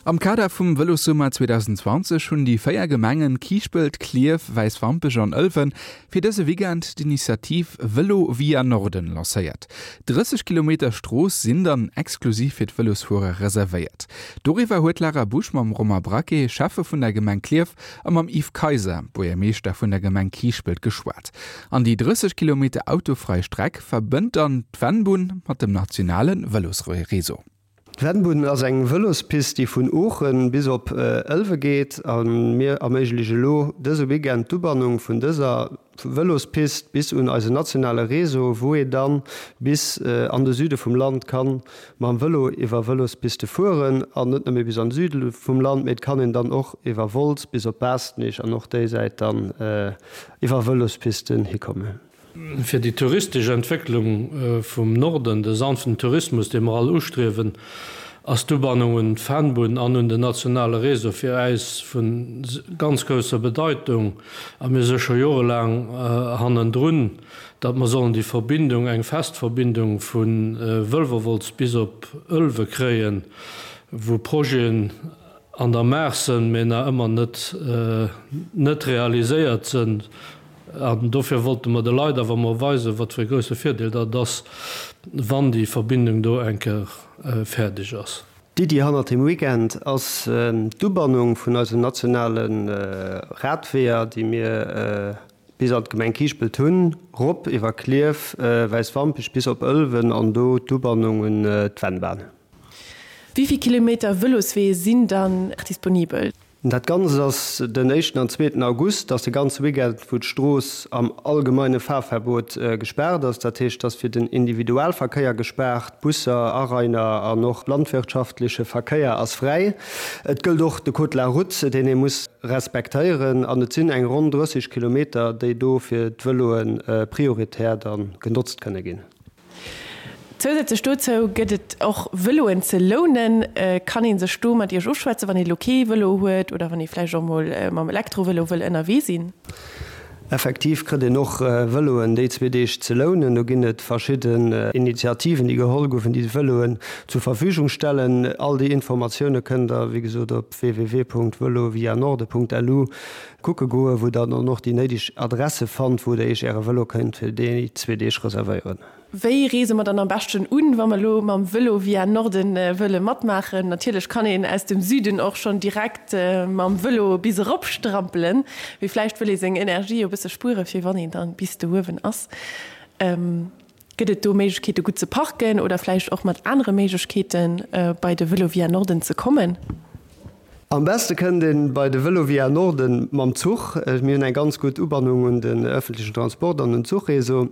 Am Kader vum Vëlossummer 2020 hunn déi 4 Gemengen Kiischpelt, Klierf, Wäiswampech an Ëlwen fir dëse Weekend d'Initiativ Vëlo via Norden lancéiert. 30 Kilometer Strooss sinn dann exklusiv fir d'Vëlosfuerer reservéiert. Doriwwer huet d'Lara Busch mam Romain Braquet, Schäffe vun der Gemeng Klierf, a mam Yves Kaiser, Buergermeeschter vun der Gemeng Kiischpelt geschwat. An déi 30 Kilometer autofrei Streck verbënnt dann d'Vennbunn mat dem nationale Vëlosreseau. D'Vennbunn ass eng Vëlospist, déi vun Oochen bis op Ëlwe geet. A mir erméigleche elo dëse Weekend d'Ubannung vun dëser Vëlospist bis un eisen nationale Réseau, wou ee dann bis an de Süde vum Land ka mam Vëlo iwwer Vëlospiste fueren. An net nëmme bis an de Süde vum Land, mee et kann een dann och iwwer Wolz bis op Baastnich an och déi Säit dann iwwer Vëlospisten hikommen. Fir déi touristesch Entwécklung vum Norden, de sanften Tourismus, dee mer all ustriewen, ass d'Ubannung un d'Vennbunn an un den nationale Réseau fir äis vu ganz grousser Bedeitung. A mir si scho jorelaang hannendrun, datt mer sollen déi Verbindung, eng fest Verbindung vu Wëlwerwolz bis op Ëlwe kréien, wou Projeten an der Maach sënn, mee nach ëmmer net net realiséiert sënn. An dofir wollte mer de Leit awer emol weisen, wat fir e grousse Virdeel dat ass, wann déi Verbindung do eng Kéier fäerdeg ass. D'Iddi hannert dem Weekend ass d'Ubannung vun eisen nationale Radweeër, déi mir bis an d'Gemeng Kiischpelt hunn, rop iwwer Klierf, Wäiswampech bis op Ëlwen an do d'Ubannung un d'Vennbahn. Wéi vill Kilometer Vëloswee sinn dann disponibel? Dat Ganzt ass den éischten an zweeten August, ass de ganze Weekend wou d'Strooss am allgemeine Fahrverbot gespaart ass. Dat heescht, ass fir den Individualverkéier gespaart, Busser, Arainer an och landwirtschaftleche Verkéier ass fräi. Et gëllt och de Code de la route, deen ee muss respektéieren an et sinn eng ronn 30 Kilometer, déi do fir d'Vëloe prioritär da genotzt kënne ginn. Zousätzlech dozou gëtt et och Vëloen ze lounen. Kann ee sech do mat Iech ofschwätzen, wann ee lo kee Vëlo huet oder wann ee vläicht och mol mam Elektrovëlo wëll ënnerwee sinn? Effektiv kritt een och Vëloen déi zwee Deeg ze lounen. Do ginn et verschidden Initiativen, déi geholl goufen, déi Vëloen zur Verfügung stellen. All déi Informatioune kënnt der, wéi gesot, op www.velovianorde.lu kucke goen, wou der dann och déi néideg Adresse fannt, wou der Iech Äre Vëlo kënnt fir déi zwee Deeg reservéieren. Wéi reese mer dann am beschten un, wa mer elo mam Vëlo via Norden wëlle matmaachen? Natierlech kann een aus dem Süden och schonn direkt mam Vëlo bis erop strampelen, mee vläicht wëll ee seng Energie jo e bësse spuere fir wann een dann bis do uewen ass. Gëtt et do Méiglechkeete gutt ze parken oder vläicht och mat anere Méiglechkeete bei de Vëlo via Norden ze kommen? Am beste kënnt een bei de Vëlo via Norden mam Zuch. Mir hunn eng ganz gutt Ubannung un den ëffentlechen Transport an un d'Zuchreseau.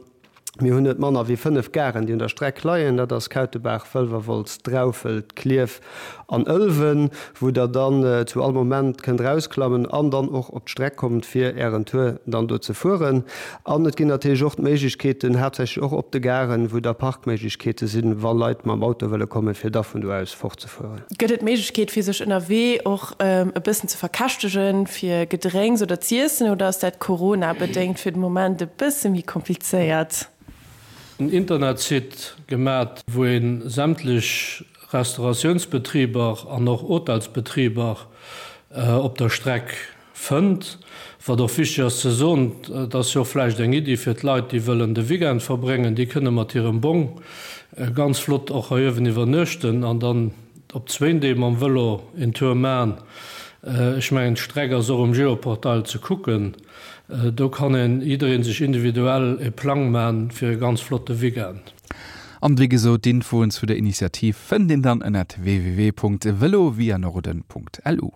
Mir hunn net manner wéi 5 Garen, déi un der Streck leien. Dat ass Kautebaach, Wëlwerwolz, Draufelt, Klierf an Ëlwen, wou Der dann zu all Moment kënnt erausklammen an dann och op d'Streck kommt, fir Ären Tour dann do ze fueren. An et ginn natierlech och d'Méiglechkeeten, haaptsächlech och op de Garen, wou da Parkméiglechkeete sinn, wa Leit mam Auto wëlle kommen, fir da vun do aus fortzefueren. Gëtt et d'Méiglechkeet, fir sech ënnerwee och e bëssen ze verkäschtegen, fir Gedrénks oder z'iessen, oder ass dat Corona-bedéngt fir de Moment e bësse méi komplizéiert? En Internetsite gemat, wou ee sämtlech Restauratiounsbetriber an och Hotelsbetriber op der Streck fënnt. Wat och wichteg ass ze soen, et ass jo och vläicht eng Iddi fir d'Leit, déi wëllen de Weekend verbréngen, déi kënne mat hirem Bong ganz flott och hei uewen iwwernuechten an dann op zwéin Dee mam Vëlo een Tour man. Ech mengen, d'Streck ass och um Geoportail ze kucken. Do kann een, jidderee sech individuell e Plang man fir e ganz flotte Weekend. An wéi gesot, d'Infoen zu der Initiativ fënnt een dann ënnert www.velovianorden.lu.